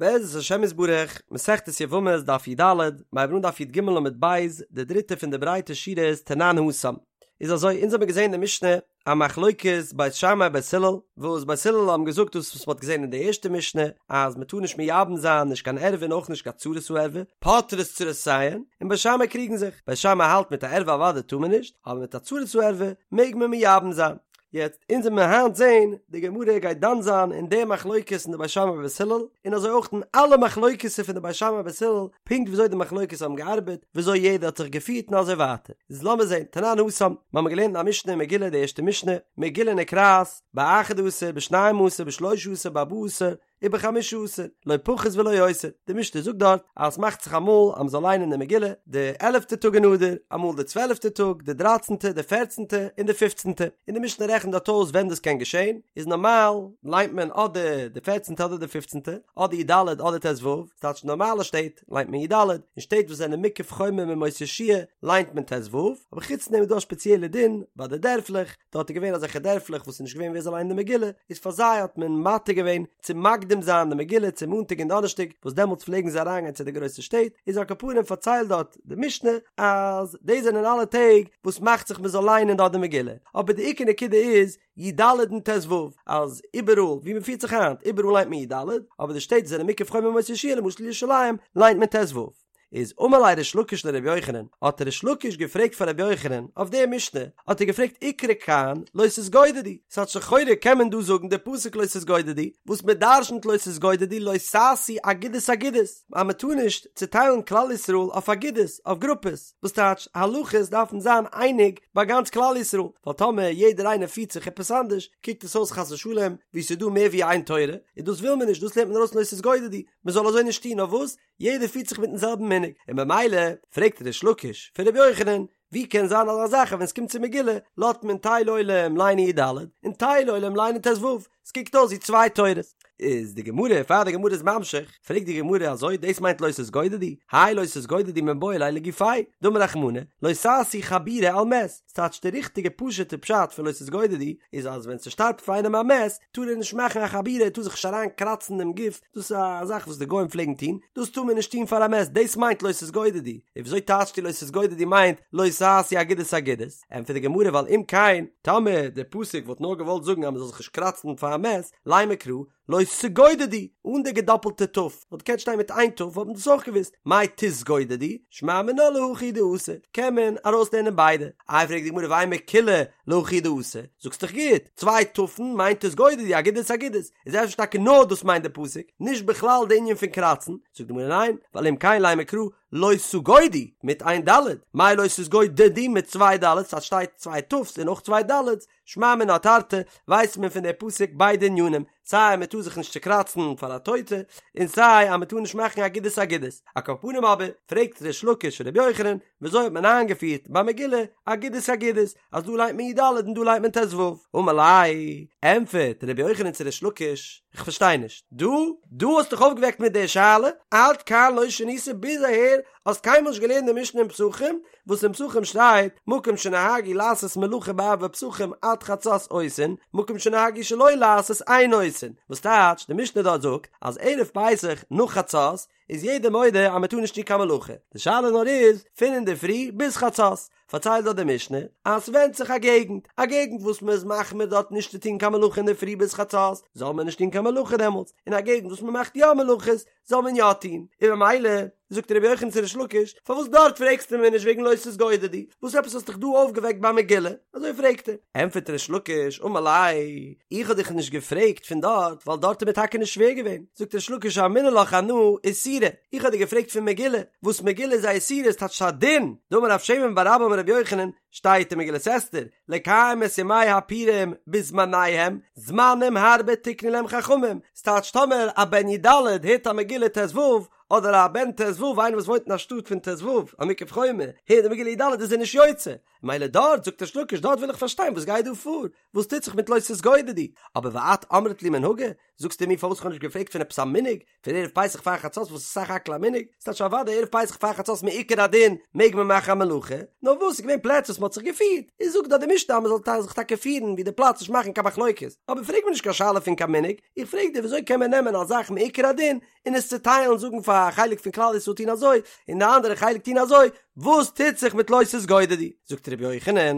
בעזרת השם יתברך, מסכת יבמות דף י"ד, מיר הייבן אן דף י"ג עמוד ב', די דריטע פון די ברייטע שורות תנן התם. איז אזוי, אונז האבן געזען אין די משנה א מחלוקת בית שמאי בית הלל, וואס בית הלל האבן געזאגט דאס וואס מ'האט געזען אין די ערשטע משנה, אז מ'טאר נישט מייבם זיין נישט קיין ערווה און אויך נישט קיין צרת הערווה, פוטרות צרותיהן, און בית שמאי קריגן זיך, בית שמאי האלט מיט א ערווה אוודאי טאר מען נישט, אבער מיט א צרת הערווה מעג מען מייבם זיין. יעצט אונז וועלן מיר היינט זעהן די גמרא גייט דן זיין אין די מחלוקת אין די בית שמאי ובית הלל און אזוי אויך אין אלע מחלוקת'ער פון די בית שמאי ובית הלל פונקט וויאזוי די מחלוקת האבן געארבעט וויאזוי יעדער האט זיך געפירט און אזוי ווייטער איז לאמיר זעהן תנן התם מיר האבן געלערנט אין א משנה אין מגילה די ערשטע משנה מגילה נקראת באחד עשר בשנים עשר בשלשה עשר בארבעה עשר ובחמשה עשר, לא פחות ולא יותר, די משנה זאגט דארט אז עס מאכט זיך אמאל אז מען זאל ליינען די מגילה די עלעפטע טאג אין אדר, אמאל די צוועלעפטע טאג, די דרייצענטע, די פערצענטע, און די פופצענטע, און די משנה רעכנט דארט אויס ווען דאס קען געשען, איז נארמאל ליינט מען אדער די פערצענטע אדער די פופצענטע, אדער י"ד אדער ט"ו, ס'טייטש נארמאלע שטעט ליינט מען י"ד, אין שטעט וואס זענען מוקף חומה מימות יהושע ליינט מען ט"ו, אבער חוץ דעם איז דא א שפעציעלע דין ביי די דערפלעך, דארט איז געווען אזעלכע דערפלעך וואס איז נישט געווען ווער זאל ליינען די מגילה, איז פאר זיי האט מען מתיר געווען צו מקדים זיין די מגילה צו מאנטאג און דאנערשטאג וואס דעמאלטס פלעגן זיי אריינגיין צו די גרויסע שטעט, איז על כל פנים פארציילט דארט די משנה אז דאס זענען אלע טעג וואס מאכט זיך מען זאל ליינען דארט די מגילה, אבער די עיקר נקודה איז י"ד און ט"ו אז איבעראל ווי מען פירט זיך היינט איבעראל ליינט מען י"ד, אבער די שטעט וואס זענען מוקף חומה מימות יהושע למשל ירושלים ליינט מען ט"ו. איז אמר ליה ריש לקיש לרבי יוחנן, האט ריש לקיש געפרעגט פאר רבי יוחנן אויף די משנה, האט ער געפרעגט איקרי כאן לא תתגודדו, ס'טייטש לכאורה קען מען דא זאגן די פסוק לא תתגודדו, וואס מען דרשנ'ט לא תתגודדו לא תעשו אגודות אגודות, אז מען טאר נישט צוטיילן כלל ישראל אויף אגודות, אויף גרופעס, וואס טייטש הלכות דארפן זיין אייניג ביי גאנץ כלל ישראל, ווייל טאמער יעדער איינער פירט זיך עפעס אנדערש, קוקט עס אויס חס ושלום ווי ס'איז דא מער ווי איין תורה, און דאס וויל מען נישט, דאס לערנט מען ארויס לא תתגודדו, מען זאל אזוי נישט טון, נאר וואס? יעדער פירט זיך מיטן זעלבן מנהג, און במילא פרעגט ריש לקיש פון רבי יוחנן, ווי קען זיין אזא זאך אז ווען עס קומט צו מגילה לאזט מען טייל עולם ליינען י"ד און טייל עולם ליינען ט"ו, עס קוקט אויס ווי צוויי תורות. איז די גמרא, פאר די גמרא איז ממשיך, פרעגט די גמרא אזוי, דאס מיינט לא תתגודדו? האי לא תתגודדו מיבעי ליה לגופיה, דאמר רחמנא, לא תעשו חבורה על מת, ס'טייטש די ריכטיגע פשוט'ע פשט פון לא תתגודדו איז אז ווען ס'שטארבט פאר איינעם א מת טאר ער נישט מאכן א חבורה ער טאר זיך נישט אריין קראצן דעם גוף דאס איז א זאך וואס די גוים פלעגן טון דאס טאר מען נישט טון פאר א מת דאס מיינט לא תתגודדו און וויאזוי טייטשטו לא תתגודדו מיינט לא תעשו אגודות אגודות ענטפערט די גמרא ווייל אם כן טאמער די פסוק וואלט נאר געוואלט זאגן אז מ'זאל זיך נישט קראצן פאר א מת לימא קרא לא תגודדו, אן די געדאפלטע ת', וואלט געקענט שטיין מיט איין ת' וואלט מען דאס אויך געוואוסט, מאי תתגודדו, שמע מינה להכי דאתא, קען מען ארויסלערנען ביידע, איי פרעגט די גמרא ואימא כולה להכי דאתא, זאגסט דאך גוט, צוויי ת'ן מיינט תתגודדו, אגודות אגודות, איז אפשר טאקע נאר דאס מיינט די פסוק, נישט בכלל די ענין פון קראצן, זאגט די גמרא ניין, ווייל אם כן לימא קרא לא תגודו מיט איין ד', מאי לא תתגודדו מיט צוויי ד', אז שטייט צוויי ת'ס און אויך צוויי ד', שמע מינה תרתי, ווייסט מען פון די פסוק ביידע ענינים, סיי אז מען טאר זיך נישט צוקראצן פאר א טויטע, און סיי אז מען טאר נישט מאכן אגודות אגודות. על כל פנים אבער, פרעגט ריש לקיש ר' יוחנן, וויאזוי האט מען איינגעפירט ביי מגילה אגודות אגודות, אז דא ליינט מען י"ד און דא ליינט מען ט"ו? אמר ליה, ענטפערט ר' יוחנן צו ריש לקיש, איך פארשטיי נישט, דו, דו האסט דיך אויפגעוועקט מיט די שאלה, עד כאן לא שנית, ביז אהער האסט קיינמאל נישט געלערנט די משנה אין פסחים, וואס אין פסחים שטייט, מקום שנהגו לעשות מלאכה בערבי פסחים עד חצות עושין, מקום שנהגו שלא לעשות אין עושין, וואס טייטש, די משנה דארט זאגט, אז ערב פסח נאך חצות, איז יעדער מודה אז מען טאר נישט טון קיין מלאכה, די שאלה נאר איז, פון אינדערפרי ביז חצות, פארציילט דארט די משנה, אז ס'ווענדט זיך א געגנט, א געגנט וואס מען איז מחמיר דארט נישט צו טון קיין מלאכה אינדערפרי ביז חצות, זאל מען נישט טון קיין מלאכה דעמאלטס, און א געגנט וואס מען מאכט יא מלאכות, זאל מען יא טון, און במילא, זאגט רבי יוחנן צו ריש לקיש, פארוואס דארט פרעגסטו מיר נישט וועגן לא תתגודדו, וואס עפעס האסט דיך דא אויפגעוועקט ביי מגילה? אזוי פרעגט ער. ענטפערט ריש לקיש, אמר ליה, איך האב דיך נישט געפרעגט פון דארט, ווייל דארט איז מיר טאקע נישט שווער געווען, זאגט ריש לקיש אמינא לך אנא איסורא, איך האב דיר געפרעגט פון מגילה, וואס מגילה איז א איסורא, עס טייטשט א דין, דאמר רב שמן בר אבא אמר רבי יוחנן, שטייט אין מגילת אסתר, לקיים את ימי הפורים בזמניהם, זמנים הרבה תיקנו להם חכמים, ס'טייטש טאמער א בן י"ד הערט א מגילה ט"ו, אדער א בן ט"ו איינער וואס וואוינט אין א שטאט פון ט"ו, א מוקף חומה, הערט די מגילה י"ד איז ער נישט יוצא, מילא דארט זאגט ריש לקיש דארט וויל איך פארשטיין וואס גייט דא פאר, וואס טוט זיך מיט לא תתגודדו, אבער ואת אמרת לי מנהגא, זאגסטו מיר פארוואס איך האב נישט געפרעגט פון עפעס א מנהג, פון ערב פסח פאר חצות וואס איז סך הכל א מנהג, ס'טייטש אוודאי ערב פסח פאר חצות מעיקר הדין מעג מען מאכן א מלאכה, נאר וואס ס'איז געווען פלעצער וואס מען האט זיך געפירט, איז זאגט דארט די משנה אז מען זאל זיך טאקע פירן ווי די פלאץ נישט מאכן קיין מחלוקת, אבער פרעג מיר נישט קיין שאלה פון קיין מנהג, איך פרעג דיר וויאזוי קען מען נעמען א זאך מעיקר הדין און עס צוטיילן זאגן פאר א חלק פון כלל ישראל טון אזוי און די אנדערע חלק טון אזוי, וואס טוט זיך מיט לא תתגודדו? זאגט ר' יוחנן,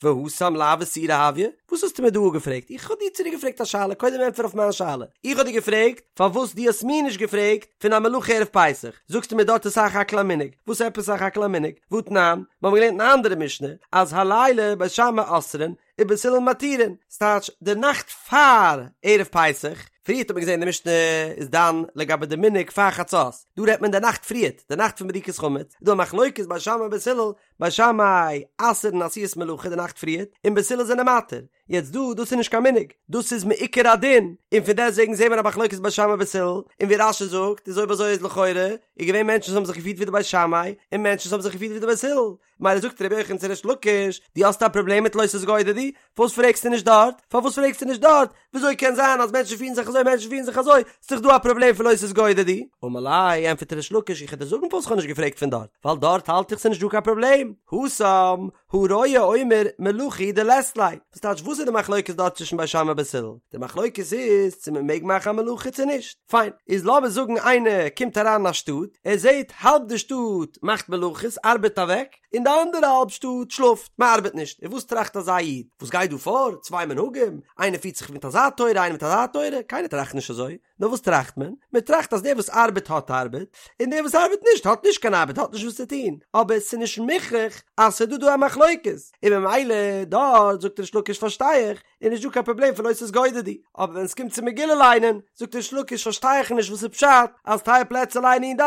והתם לאו איסורא הויא, וואס האסטו מיר דא געפרעגט? איך האב דיר צוריק געפרעגט א שאלה, קודם ענטפער אויף מיין שאלה, איך האב דיר געפרעגט פארוואס דו האסט מיר נישט געפרעגט פון א מלאכה ערב פסח, זאגסטו מיר דארט איז סך הכל א מנהג, וואס עפעס סך הכל א מנהג? והתנן, מיר האבן געלערנט אין א אנדערע משנה אז הלילה בית שמאי אוסרין ובית הלל מתירין, ס'טייטש די נאכט פאר ערב פסח, פריערט האט מען געזען די משנה איז דן לגבי די מנהג פאר חצות, דא רעדט מען די נאכט פריערט, די נאכט פון בדיקת חמץ, איז דא א מחלוקת בית שמאי ובית הלל, בית שמאי אסר'ן עשיית מלאכה די נאכט פריערט, און בית הלל זענען מתיר, יעצט דא, דאס איז נישט קיין מנהג, דאס איז מעיקר הדין, און פון דעסטוועגן זעהן מיר א מחלוקת בית שמאי ובית הלל, און ווי רש"י זאגט, איז אויב אזוי איז לכאורה, איז געווען מענטשן וואס האבן זיך געפירט ווי די בית שמאי, און מענטשן וואס האבן זיך געפירט ווי די בית הלל, מילא זאגט רבי יוחנן צו ריש לקיש, דו האסט א פראבלעם מיט לא תתגודדו? פארוואס פרעגסטו נישט דארט? פארוואס פרעגסטו נישט דארט? וויאזוי קען זיין אז מענטשן פירן זיך אזוי מענטשן פירן זיך אזוי? ס'איז דאך דא א פראבלעם פון לא תתגודדו. אמר ליה, ענטפערט ריש לקיש, איך וועל דיר זאגן פארוואס כ'האב נישט געפרעגט פון דארט, ווייל דארט האלט איך ס'איז נישט דא קיין פראבלעם, התם, הרואה אומר מלאכה הוא דלית ליה. וואס טייטש וואס איז די מחלוקת דארט צווישן בית שמאי ובית הלל? די מחלוקת איז צו מען מעג מאכן א מלאכה צו נישט. פיין, איז לאמיר זאגן איינער קומט אריין אין א שטאט, ער זעט האלב די שטאט מאכט מלאכות, ארבעט אוועק, און די אנדערע האלב שטאט שלאפט, מען ארבעט נישט, און וואס טראכט אזא איד? וואס גייט דא פאר? צוויי מנהגים? איינער פירט זיך מיט אזא תורה, איינער מיט אזא תורה? קיינער טראכט נישט אזוי. נאר וואס טראכט מען? מען טראכט אז דער וואס ארבעט האט ארבעט, און דער וואס ארבעט נישט האט נישט קיין ארבעט, האט נישט וואס צו טון, אבער עס איז נישט מוכרח אז ס'איז דא דא א מחלוקת, און ממילא דארט זאגט ריש לקיש פארשטיי איך, איז נישט דא קיין פראבלעם פון לא תתגודדו, אבער ווען עס קומט צו מגילה ליינען, זאגט ריש לקיש פארשטיי איך נישט וואס איז פשט אז טייל פלעצער ליינען י ד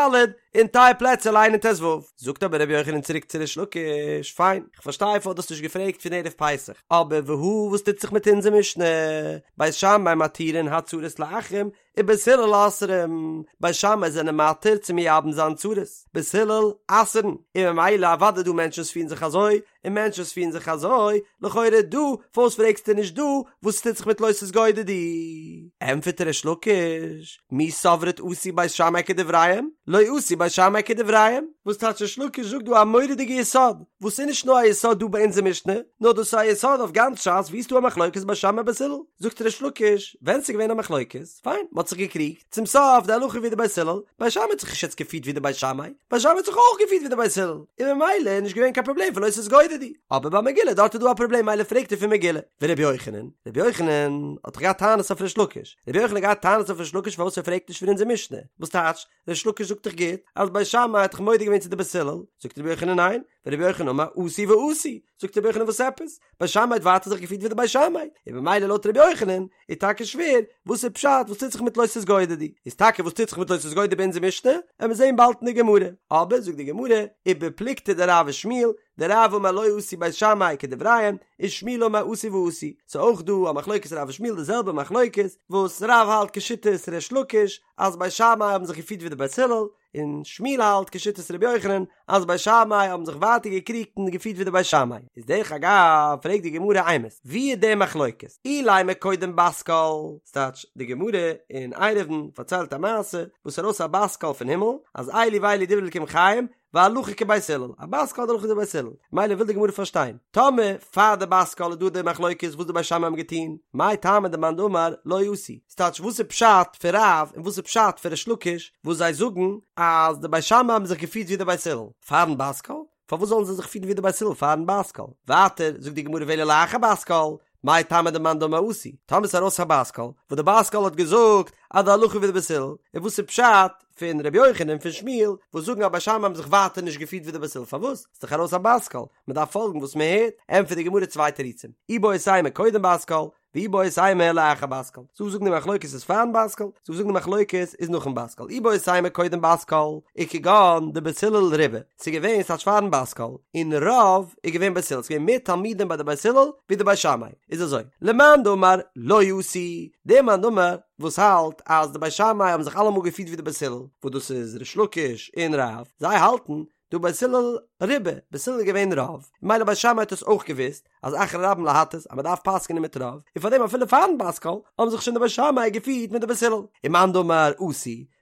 און טייל פלעצער ליינען ט ו. זאגט אבער רבי יוחנן צוריק צו ריש לקיש, פיין, כ'פארשטיי פארוואס דו האסט נישט געפרעגט פון ערב פסח, אבער והא וואס טוט זיך מיט אונזער משנה, בית שמאי מתירין הצרות לאחים ובית הלל אוסרים, בית שמאי זענען מתיר צו מייבם זיין צרות, בית הלל אסר'ן, און ממילא אוודאי דא מענטשן וואס פירן זיך אזוי, און מענטשן וואס פירן זיך אזוי, לכאורה דא, פארוואס פרעגסטו נישט דא, וואס טוט זיך מיט לא תתגודדו? ענטפערט ריש לקיש, מי סברת עשו בית שמאי כדבריהם, לא עשו בית שמאי כדבריהם, וואס טייטש ריש לקיש זאגט דא א מורא'דיגע יסוד, וואס איז נישט נאר א יסוד דא ביי אונזער משנה, נאר דאס איז א יסוד אויף גאנץ ש"ס וואו ס'איז דא א מחלוקת בית שמאי בית הלל, זאגט ריש לקיש, ווען ס'איז געווען א מחלוקת, פיין, מ'האט זיך געקריגט, צום סוף די הלכה ווי די בית הלל, בית שמאי האט זיך נישט יעצט געפירט ווי די בית שמאי, בית שמאי האט זיך אויך געפירט ווי די בית הלל, און ממילא איז נישט געווען קיין פראבלעם פון לא תתגודדו, אבער ביי מגילה דארט איז דא א פראבלעם מילא פרעגט ער פון מגילה, ורבי יוחנן, רבי יוחנן האט דאך געהאט טענות אויף ריש לקיש, רבי יוחנן האט געהאט טענות אויף ריש לקיש פארוואס ער פרעגט נישט פון אונזער משנה, וואס טייטש, ריש לקיש זאגט דאך גוט אז בית שמאי האט דאך מודה געווען צו די בית הלל, זאגט רבי יוחנן ניין, ורבי יוחנן אמר עשו ועשו, זאגט רבי יוחנן וואס עפעס? בית שמאי האט ווייטער זיך געפירט ווי די בית שמאי, און במילא לויט רבי יוחנן איז טאקע שווער, וואס איז פשט וואס טוט זיך מיט לא תתגודדו? איז טאקע וואס טוט זיך מיט לא תתגודדו ביי אונזער משנה? עמיר זעהן באלד אין די גמרא, אבער זאגט די גמרא, ובפלוגתא דרב ושמואל, דרב אמר לא עשו בית שמאי כדבריהם, ושמואל אמר עשו ועשו, ס'איז אויך דא א מחלוקת רב ושמואל די זעלבע מחלוקת וואס רב האלט כשיטת ריש לקיש אז בית שמאי האבן זיך געפירט ווי די בית הלל, און שמואל האלט כשיטת רבי יוחנן אז בית שמאי האבן זיך ווייטער געקריגט און געפירט ווי די בית שמאי. איז דרך אגב פרעגט די גמרא אימת ווי איז די מחלוקת? אילימא קודם בת קול, ס'טייטש די גמרא אין עירובין פארציילט א מעשה וואס ארויס א בת קול פון הימל אז אלו ואלו דברי אלקים חיים והלכה כבית הלל, א בת קול די הלכה איז ווי בית הלל, מילא וויל די גמרא פארשטיין, טאמער פאר די בת קול איז דא די מחלוקת וואס די בית שמאי האבן געטון, מאי טעמא דמאן דאמר לא עשו, ס'טייטש וואס איז פשט פון רב און וואס איז פשט פון ריש לקיש וואס זיי זאגן אז די בית שמאי האבן זיך געפירט ווי די בית הלל פארן בת קול, פארוואס זאלן זיי זיך פירן ווי די בית הלל פארן בת קול? ווייטער זאגט די גמרא ואלא לאחר בת קול, מאי טעמא דמאן דאמר עשו, טאמער ס'איז ארויס א בת קול, וואס די בת קול האט געזאגט אז די הלכה ווי די בית הלל, און וואס איז פשט פון ר' יוחנן און פון שמואל וואס זאגן אז בית שמאי האבן זיך ווייטער נישט געפירט ווי די בית הלל, פארוואס? ס'איז דאך ארויס א בת קול, מ'דארף פאלגן וואס מ'הערט, ענטפערט די גמרא צוויי תירוצים, איבעית אימא קודם בת קול, ואיבעית אימא לאחר בת קול, ס'דא וואס זאגן די מחלוקת איז פארן בת קול, ס'דא וואס זאגן די מחלוקת איז נאכן בת קול, איבעית אימא קודם בת קול, איז כגון דבית הלל רובא, ס'איז געווען ס'טייטש פארן בת קול, און רוב איז געווען בית הלל, ס'איז געווען מער תלמידים ביי די בית הלל ווי די בית שמאי, איז אזוי, למאן דאמר לא עשו, דער מאן דאמר וואס האלט אז די בית שמאי האבן זיך אלעמאל געפירט ווי די בית הלל, וואס דאס איז ריש לקיש און רב, זיי האלטן. דהא בית הלל רובא, בית הלל איז געווען רוב, ממילא בית שמאי האט עס אויך געוואוסט, אז אחרי רבים להטות, אז מען דארף פסק'נען מיט רוב, און פארדעם אפילו פארן בת קול, האבן זיך שוין די בית שמאי געפירט מיט די בית הלל. ומאן דאמר אתו,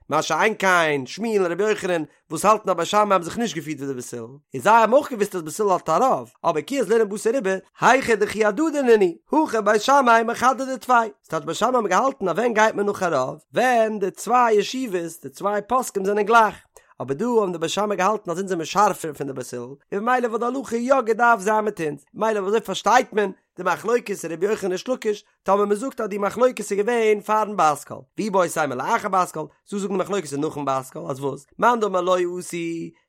מה שאין כן, שמואל און רבי יוחנן, וואס האלטן אז בית שמאי האבן זיך נישט געפירט ווי די בית הלל, און זיי האבן אויך געוואוסט אז בית הלל האט א רוב, אבער כי אזלינן בתר רובא, היכא דכי הדדי נינהו, הכא בית שמאי מחדדי טפי. ס'טייטש בית שמאי האבן געהאלטן אז ווען גייט מען נאך א רוב? ווען די צוויי ישיבות, די צוויי פוסקים זענען גלייך. אבער דא האבן די בית שמאי געהאלטן אז אונז זעמיר שארפער פון די בית הלל, און ממילא וואלט די הלכה יא געדארפט זיין מיט אונז. ממילא ווי אזוי פארשטייט מען די מחלוקת רבי יוחנן ריש לקיש, טאמער מען זאגט אז די מחלוקת איז געווען פארן בת קול, ואיבעית אימא לאחר בת קול, זא זאגן די מחלוקת איז נאכן בת קול, אז וואס? מאן דאמר לא אתו,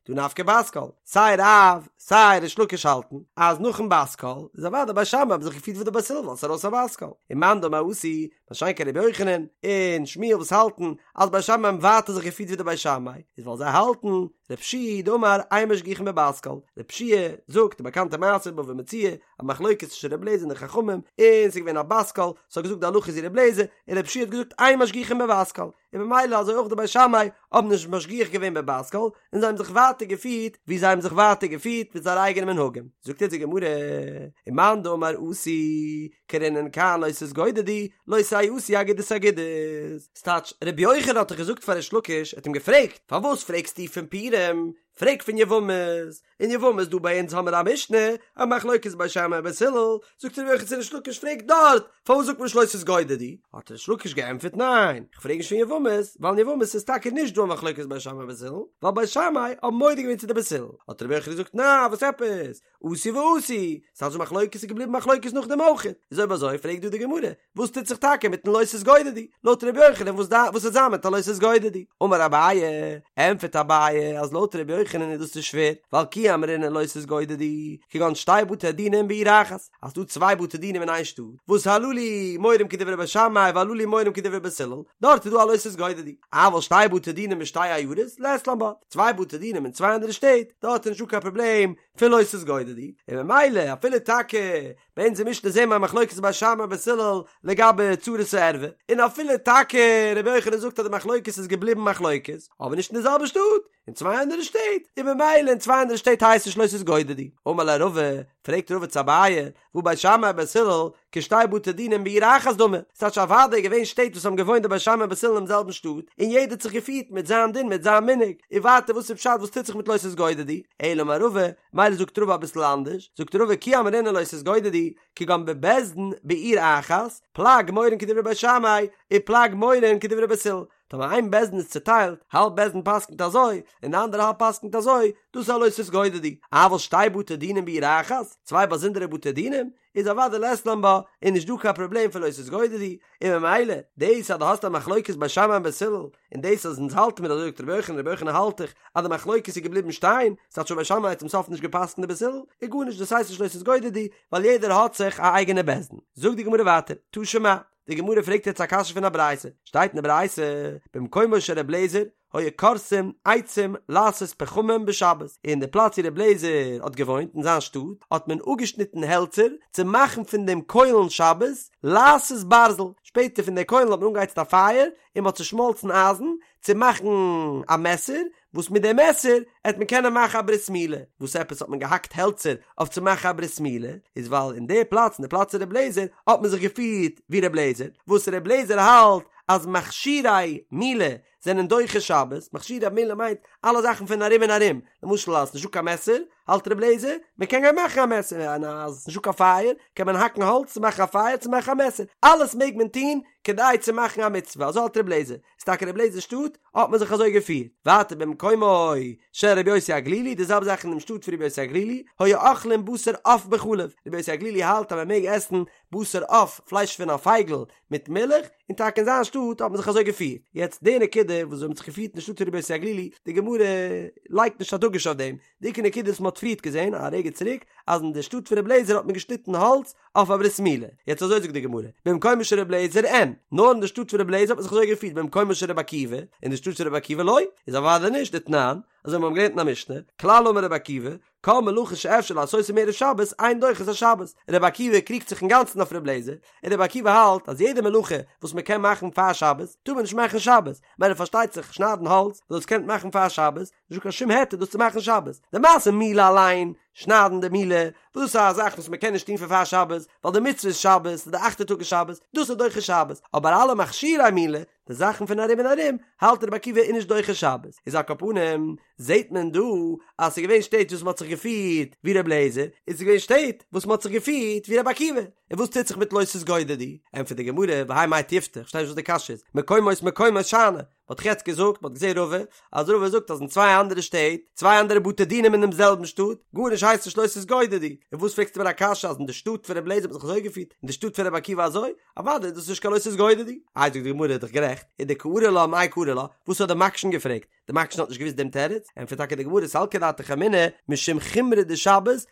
דהא נפקא בת קול, סיי רב סיי ריש לקיש האלטן אז נאכן בת קול איז אוודאי בית שמאי האבן זיך געפירט ווי די בית הלל ווייל ס'איז ארויס א בת קול, און מאן דאמר אתו, מה שאין כן רבי יוחנן און שמואל וואס האלטן אז בית שמאי האבן ווייטער זיך געפירט ווי די בית שמאי, איז ווייל זיי האלטן רב שיע דאמר אין משגיחין בבת קול, רב שיע זאגט די באקאנטע מעשה בבא מציעא, א מחלוקת צווישן רבי אליעזר און די חכמים, און ס'איז געווען א בת קול, ס'האט געזאגט די הלכה איז ווי רבי אליעזר, און רב שיע האט געזאגט אין משגיחין בבת קול, און ממילא אזוי אויך די בית שמאי האבן נישט משגיח געווען בבת קול, און זיי האבן זיך ווייטער געפירט ווי זיי האבן זיך ווייטער געפירט מיט זייערע אייגענע מנהגים. זאגט אונז די גמרא, ומאן דאמר אתו, קרינן כאן לא תתגודדו, לא תעשו אגודות אגודות. ס'טייטש, רבי יוחנן האט דאך געזאגט פאר ריש לקיש, ער האט אים געפרעגט, פארוואס פרעגסטו פון פורים? פרעג פון יבמות, אין יבמות דא ביי אונז האמער א משנה, א מחלוקת בית שמאי ובית הלל, זאגט רבי יוחנן צו ריש לקיש פרעג דארט, פארוואס זאגט מען נישט לא תתגודדו? האט ריש לקיש געענטפערט ניין, איך פרעג נישט פון יבמות, ווייל אין יבמות איז טאקע נישט דא א מחלוקת בית שמאי ובית הלל, ווייל בית שמאי האבן מודה געווען צו די בית הלל, האט רבי יוחנן געזאגט ניין וואס עפעס, אתו ואתו, ס'הייסט די מחלוקת איז געבליבן מחלוקת נאכדעם אויך, איז אויב אזוי פרעגט דא די גמרא, וואס טוט זיך טאקע מיטן לא תתגודדו? לויט ר' יוחנן וואס דא וואס וועט זיין מיט א לא תתגודדו? אמר אביי, ענטפערט אביי אז לויט ר' יוחנן איז דאס נישט שווער, ווייל כי אמרינן לא תתגודדו, כגון שתי בתי דינים בעיר אחת, אז ס'דא צוויי בתי דינים אין איין שטאט, וואס הללו מורים כדברי בית שמאי והללו מורים כדברי בית הלל, דארט איז דא א לא תתגודדו. אבל שתי בתי דינים בשתי עיירות, לית לן בה, צוויי בתי דינים אין צוויי אנדערע שטעט, דארט איז נישטא קיין פראבלעם פון לא תתגודדו, און ממילא אפילו טאקע ביי אונזער משנה זעהן מיר א מחלוקת בית שמאי בית הלל לגבי צרת הערווה, און אפילו טאקע רבי יוחנן זאגט אז די מחלוקת איז געבליבן מחלוקת, אבער נישט אין די זעלבע שטאט, אין צוויי אנדערע שטעט, און ממילא אין צוויי אנדערע שטעט הייסט נישט לא תתגודדו. אמר ליה רבא, פרעגט רבא צו אביי, והא בית שמאי ובית הלל, כשתי בתי דינים בעיר אחת דמי, ס'טייטש אוודאי געווען שטעט וואס האבן געוואוינט די בית שמאי און בית הלל אינעם זעלבן שטאט, און יעדער האט זיך געפירט מיט זיין דין מיט זיין מנהג, און ווייטער וואס איז פשט וואס טוט זיך מיט לא תתגודדו, אלא אמר רבא, מילא זאגט רבא אביסל אנדערש, זאגט רבא כי אמרינן לא תתגודדו, כגון בבית דין בעיר אחת, פלג מורין כדברי בית שמאי, ופלג מורין כדברי בית הלל, טאמער איין בית דין איז צוטיילט, האלב בית דין פסק'נט אזוי, און די אנדערע האלב פסק'נט אזוי, דאס איז א לא תתגודדו. אבל שתי בתי דינים בעיר אחת, צוויי באזונדערע בתי דינים, איז אוודאי לית לן בה, איז נישט דא קיין פראבלעם פון לא תתגודדו, און ממילא, דאס אז דו האסט א מחלוקת בית שמאי און בית הלל, און דאס אז אונז האלטן מיר אזוי זאגט רבי יוחנן, רבי יוחנן האלט דאך אז די מחלוקת איז געבליבן שטיין, ס'האט שוין בית שמאי צום סוף נישט געפסקנט ווי בית הלל, איז גארנישט דאס הייסט נישט לא תתגודדו, ווייל יעדער האט זיך א אייגענע בית דין. זאגט די גמרא ווייטער, תא שמע, די גמרא פרעגט יעצט א קשיא פון א ברייתא, שטייט אין די ברייתא, במקומו של ר' לעזער היו כורתים עצים לעשות פחמים בשבת, אין די פלאץ ווי ר' לעזער האט געוואוינט אין זיין שטאט האט מען אפגעשניטן העלצער צו מאכן פון דעם קוילן שבת לעשות ברזל, שפעטער פון די קוילן האט מען אנגעהייצט א פייער און מען האט צושמאלצן אייזן צו מאכן א מעסער, וואס מיט די מעסער העט מען קענען מאכן א ברית מילה, וואס עפעס האט מען געהאקט העלצער אויף צו מאכן א ברית מילה, איז ווייל אין די פלאץ אין די פלאץ פון ר' לעזער האט מען זיך געפירט ווי ר' לעזער, וואס ר' לעזער האלט אז מכשירי מילה זענען דוחה שבת, מכשירי מילה מיינט אלע זאכן פון ארום און ארום, למשל אז ס'נישטא קיין מעסער, האלט ר' לעזער מען קען גיין מאכן א מעסער, און אז ס'נישטא קיין פייער קען מען האקן האלץ צו מאכן א פייער צו מאכן א מעסער, אלעס מעג מען טון כדי צו מאכן א מצוה, אזוי האלט ר' לעזער, איז טאקע ר' לעזער'ס שטאט האט מען זיך אזוי געפירט. ווייטער במקומו של רבי יוסי הגלילי, די זעלבע זאך אין דעם שטאט פון רבי יוסי הגלילי, היו אוכלים בשר עוף בחלב, רבי יוסי הגלילי האלט אז מען מעג עסן בשר עוף, פלייש פון א פייגל, מיט מילך, און טאקע אין זיין שטאט האט מען זיך אזוי געפירט. יעצט די נקודה וואס האט מען זיך געפירט אין שטאט פון רבי יוסי הגלילי, די גמרא לייגט נישט א דגוש אויף דעם, די עיקר נקודה וואס מען האט פריערט געזען א רגע צוריק, אז אין די שטאט פון רבי אליעזר האט מען געשניטן האלץ אויף א ברית מילה. יעצט אזוי זאגט די גמרא, במקומו של רבי אליעזר אין, נאר אין די שטאט פון רבי אליעזר האט מען זיך אזוי געפירט, במקומו של רבי עקיבא, אין די שטאט פון רבי עקיבא לא, איז אוודאי נישט, דתנן, אזוי ווי מיר האבן געלערנט אין א משנה, כלל אמר רבי עקיבא, כל מלאכה שאפשר לעשותה מערב שבת אין דוחה את השבת, רבי עקיבא קריגט זיך אינגאנצן אויף רבי אליעזר, און רבי עקיבא האלט אז יעדע מלאכה וואס מען קען מאכן פאר שבת טאר מען נישט מאכן שבת, מילא פארשטייט זיך שניידן האלץ וואס דאס קען מען מאכן פאר שבת, נישטא קיין שום היתר דאס צו מאכן שבת, די מעשה מילה אליין, שניידן די מילה, וואס דאס איז א זאך וואס מען קען נישט טון פון פאר שבת, ווייל די מצוה איז שבת, און די אכטע טאג איז שבת, דאס איז דוחה שבת, אבער אלע מכשירי מילה, די זאכן פון ארום און ארום, האלט רבי עקיבא איז נישט דוחה שבת. איז על כל פנים, זעט מען דא אז ס'איז געווען שטעט וואס מ'האט זיך געפירט ווי רבי אליעזר, און ס'איז געווען שטעט וואס מ'האט זיך געפירט ווי רבי עקיבא. און וואס טוט זיך מיט לא תתגודדו? ענטפערט די גמרא, והאי מאי תיובתא, כ'פארשטיי נישט וואס די קשיא איז, מקומות מקומות שאני, מ'האט דאך יעצט געזאגט, מ'האט געזען רבא, אז רבא זאגט אז אין צוויי אנדערע שטעט, צוויי אנדערע בתי דינים אין דעם זעלבן שטאט, גארנישט הייסט נישט לא תתגודדו. און וואס פרעגסטו מיר א קשיא אז אין די שטאט פון רבי אליעזר האט מען זיך אזוי געפירט, אין די שטאט פון רבי עקיבא אזוי? אוודאי איז דאס נישט קיין לא תתגודדו. איי זאגט די גמרא איז דאך גערעכט, ודקארי לה מאי קרי לה, וואס האט די מקשן געפרעגט? די מקשן האט נישט געוואוסט דעם תירוץ, ענטפערט טאקע די גמרא סלקא דעתך אמינא משום חומרא דשבת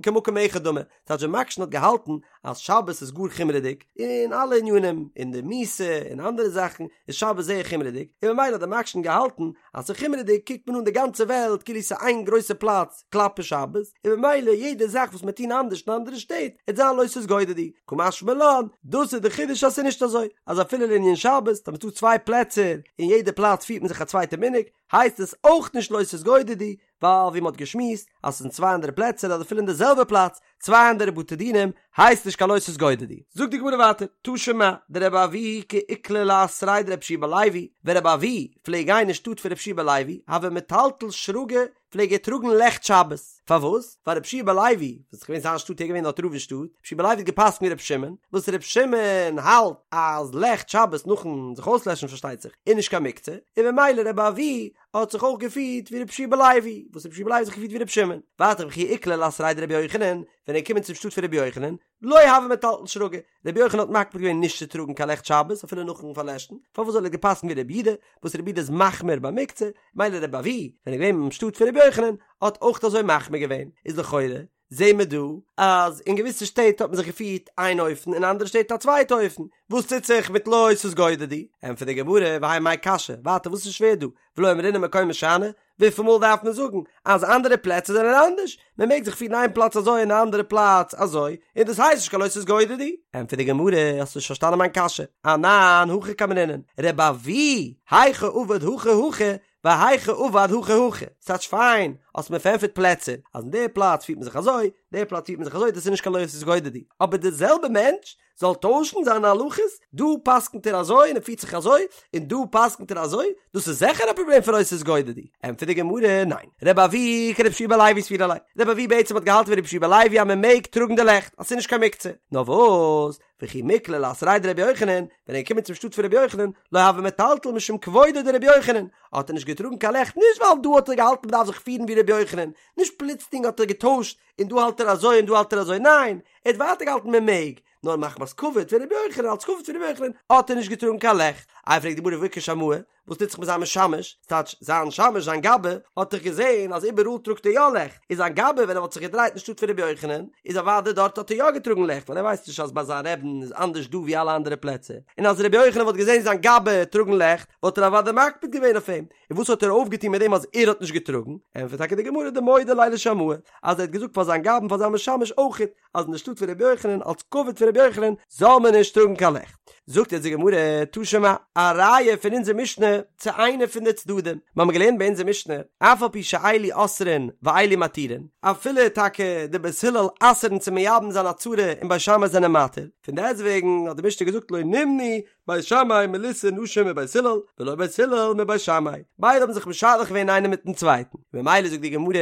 כמקום אחד דמי, ס'טייטש די מקשן האט געהאלטן אז שבת איז גאר חומרה'דיג אין אלע ענינים, אין די מיתה און אנדערע זאכן איז שבת זייער חומרה'דיג, און ממילא האט די מקשן געהאלטן אז ס'איז חומרה'דיג קוקט מען אן די גאנצע וועלט כאילו ס'איז איין גרויסע פלאץ כלפי שבת, און ממילא יעדע זאך וואס מיר טוהן אנדערש אין אנדערע שטעט וועט זיין לא תתגודדו, קא משמע לן, דאס איז די חידוש אז ס'איז נישט אזוי, אז אפילו לענין שבת, טאמער ס'דא צוויי פלעצער אין יעדע פלאץ פירט מען זיך א צווייטע מנהג, הייסט עס אויך נישט לא תתגודדו, ווייל ווי מ'האט געשמועסט אז ס'איז אין צוויי אנדערע פלעצער אדער אפילו אין די זעלבע פלאץ צוויי אנדערע בתי דינים הייסט נישט קיין לא תתגודדו. זאגט די גמרא ווייטער, תא שמע, דרבי אבהו כי איקלע לאתריה דרבי יהושע בן לוי, ווען רבי אבהו פלעג גיין אין שטאט פון רבי יהושע בן לוי, הוה מטלטל שרגא פלעג ער טראגן לעכט שבת, פארוואס? ווייל רבי יהושע בן לוי, וואס איז געווען זיין שטאט ער איז געווען דארט רב אין שטאט, רבי יהושע בן לוי האט געפסקנט ווי רבי שמעון, וואס רבי שמעון האלט אז לעכט שבת נאכן זיך אויסלעשן פארשטייט זיך, איז נישט קיין מוקצה, און ממילא רבי אבהו האט זיך אויך געפירט ווי רבי יהושע בן לוי, וואס רבי יהושע בן לוי האט זיך געפירט ווי רבי שמעון. ווייטער וכי איקלע לאתריה דרבי יוחנן, ווען ער איז געקומען צום שטאט פון רבי יוחנן, לא הוה מטלטל שרגא, רבי יוחנן האט מקפיד געווען נישט צו טראגן קיין לעכט שבת אפילו נאכן פארלעשן, פארוואס ווייל ער האט געפסקנט ווי רבי יהודה, וואס רבי יהודה איז מחמיר ביי מוקצה, מילא רבי אבהו, ווען ער איז געווען אין שטאט פון רבי יוחנן, האט אויך אזוי מחמיר געווען, איז לכאורה זעהן מיר דא אז אין געוויסע שטעט האט מען זיך געפירט איין אופן אין אנדערע שטעט א צווייטע אופן, וואס טוט זיך מיט לא תתגודדו? ענטפערט די גמרא, והאי מאי קשיא, ווייטער וואס איז שווער דא, ולא אמרינן מקומות שאני, וויפיל מאל דארף מען זאגן אז אנדערע פלעצער זענען אנדערש? מען מעג זיך פירן איין פלאץ אזוי און א אנדערע פלאץ אזוי, און דאס הייסט נישט קיין לא תתגודדו. ענטפערט די גמרא, האסט נישט פארשטאנען מיין קשיא, אנן הכי קאמרינן, רבי אבהו, היכא עביד הכי הכי, והיכא עביד הכי הכי, ס'טייטש פיין, האסט מיר פארענטפערט פלעצער, אז אין די פלאץ פירט מען זיך אזוי, די פלאץ פירט מען זיך אזוי, דאס איז נישט קיין לא תתגודדו, אבער די זעלבע מענטש זאל טוישן זיינע הלכות, דא פסק'נט ער אזוי און ער פירט זיך אזוי, און דא פסק'נט ער אזוי, דאס איז זיכער א פראבלעם פון לא תתגודדו. ענטפערט די גמרא, ניין, רבי אבהו כרבי יהושע בן לוי סבירא ליה, רבי אבהו בעצם האט געהאלטן ווי רבי יהושע בן לוי אז מען מעג טראגן די לעכט, אז ס'איז נישט קיין מוקצה, נאר וואס, וכי מיקלע לאתריה דרבי יוחנן, ווען ער איז געקומען צום שטאט פון רבי יוחנן, לא הוה מטלטל משום כבודו דרבי יוחנן, האט ער נישט געטראגן קיין לעכט נישט ווייל דא האט ער געהאלטן מ'דארף זיך פירן ווי רבי יוחנן, נישט פלוצלינג האט ער געטוישט און דא האלט ער אזוי און דא האלט ער אזוי, ניין, ער האט ווייטער געהאלטן מען מעג, נאר מחמת כבוד פון רבי יוחנן, אלס כבוד פון רבי יוחנן, האט ער נישט געטראגן קיין לעכט. איי פרעגט די גמרא והא איכא שמאי, וואס טוט זיך מיט זיין משמש, ס'טייטש זיין שמש זיין גבאי, האט דאך געזען אז איבעראל טראגט ער יא לעכט, איז זיין גבאי ווען ער וואלט זיך געדרייט אין שטאט פון רבי יוחנן, איז אוודאי דארט האט ער יא געטראגן לעכט, ווייל ער ווייסט נישט אז ביי זיין רעבין איז אנדערש דא ווי אלע אנדערע פלעצער, און אז רבי יוחנן וואלט געזען זיין גבאי טראגן לעכט, וואלט ער אוודאי מקפיד געווען אויף אים, און וואס האט ער אויפגעטון מיט דעם אז ער האט נישט געטראגן? ענטפערט טאקע די גמרא דמודע ליה לשמאי, אז ער האט געזאגט פאר זיין גבאי פאר זיין משמש אויכעט, אז אין די שטאט פון רבי יוחנן אלס כבוד פון רבי יוחנן זאל מען נישט טראגן קיין לעכט. זאגט יעצט די גמרא, תא שמע, א ראיה פון אונזער משנה צו איינע פון די צדדים, מיר האבן געלערנט ביי אונזער משנה, אף על פי שאלו אוסרין ואלו מתירין, אפילו טאקע די בית הלל אסר'ן צו מייבם זיין א צרה און בית שמאי זענען מתיר, פון דעסטוועגן האט די משנה געזאגט לא נמנעו בית שמאי מלישא נשים מבית הלל, ולא בית הלל מבית שמאי, ביידע האבן זיך משדך געווען איינער מיטן צווייטן, ממילא זאגט די גמרא,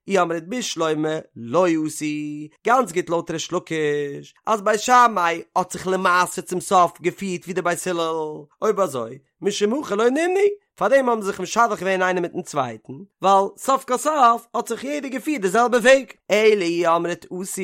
אי אמרת בשלמא לא עשו, גאנץ גוט לויט ריש לקיש, אז בית שמאי האט זיך למעשה צום סוף געפירט ווי די בית הלל, אויב אזוי, משום הכי לא נמנעו, פארדעם האבן זיי זיך משדך געווען איינער מיטן צווייטן, ווייל סוף כל סוף האט זיך יעדער געפירט די זעלבע וועג. אלא אי אמרת עשו,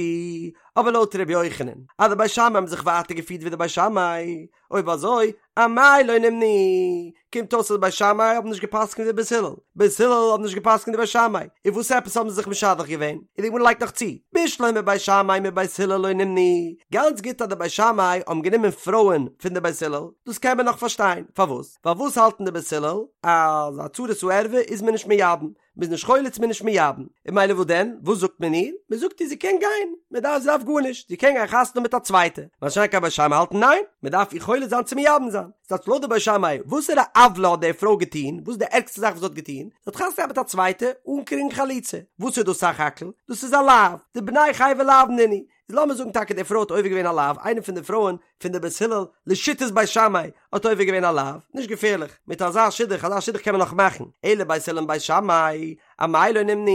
אבער לויט ר' יוחנן, אז די בית שמאי האבן זיך ווייטער געפירט ווי די בית שמאי, אויב אזוי, אמאי לא נמנעו, קומט אויס אז בית שמאי האבן נישט געפסקנט ווי בית הלל, בית הלל האבן נישט געפסקנט ווי בית שמאי, און וואס עפעס האבן זיי זיך משדך געווען? און די גמרא לייגט נאך צו, בשלמא בית שמאי מבית הלל לא נמנעו, גאנץ גוט אז די בית שמאי האבן גענומען פרויען פון די בית הלל, דאס קען מען נאך פארשטיין, פארוואס? ווייל וואס האלטן די בית הלל? אז א צרת הערווה איז מען נישט מייבם, מ'איז נישט חולץ מ'איז נישט מייבם, און ממילא וואס דען? וואס זאגט מען איר? מ'זאגט איר זי קען גיין, מ'דארף זי דארף גארנישט, זי קען גיין חתונה האבן מיט א צווייטע, מה שאין כן בית שמאי האלטן ניין, מ'דארף איר חולץ זיין צו מייבם זיין. ס'טייטש לויט די בית שמאי, וואסערע עוולה האט די פרוי געטון? וואס איז די ערגסטע זאך וואס זי האט געטון? זי האט חתונה געהאט מיט א צווייטע אן קריגן חליצה. וואס איז דאס סך הכל? דאס איז א לאו. דבני חייבי לאוין נינהו. איז לאמיר זאגן טאקע די פרוי האט עובר געווען א לאו, איינע פון די פרויען פון די בית הלל לשיטת בית שמאי האט עובר געווען א לאו, נישט געפערליך, מיט אזא שידוך, אזא שידוך קען מען נאך מאכן, אלא בית הלל מבית שמאי, אמאי לא נימנו,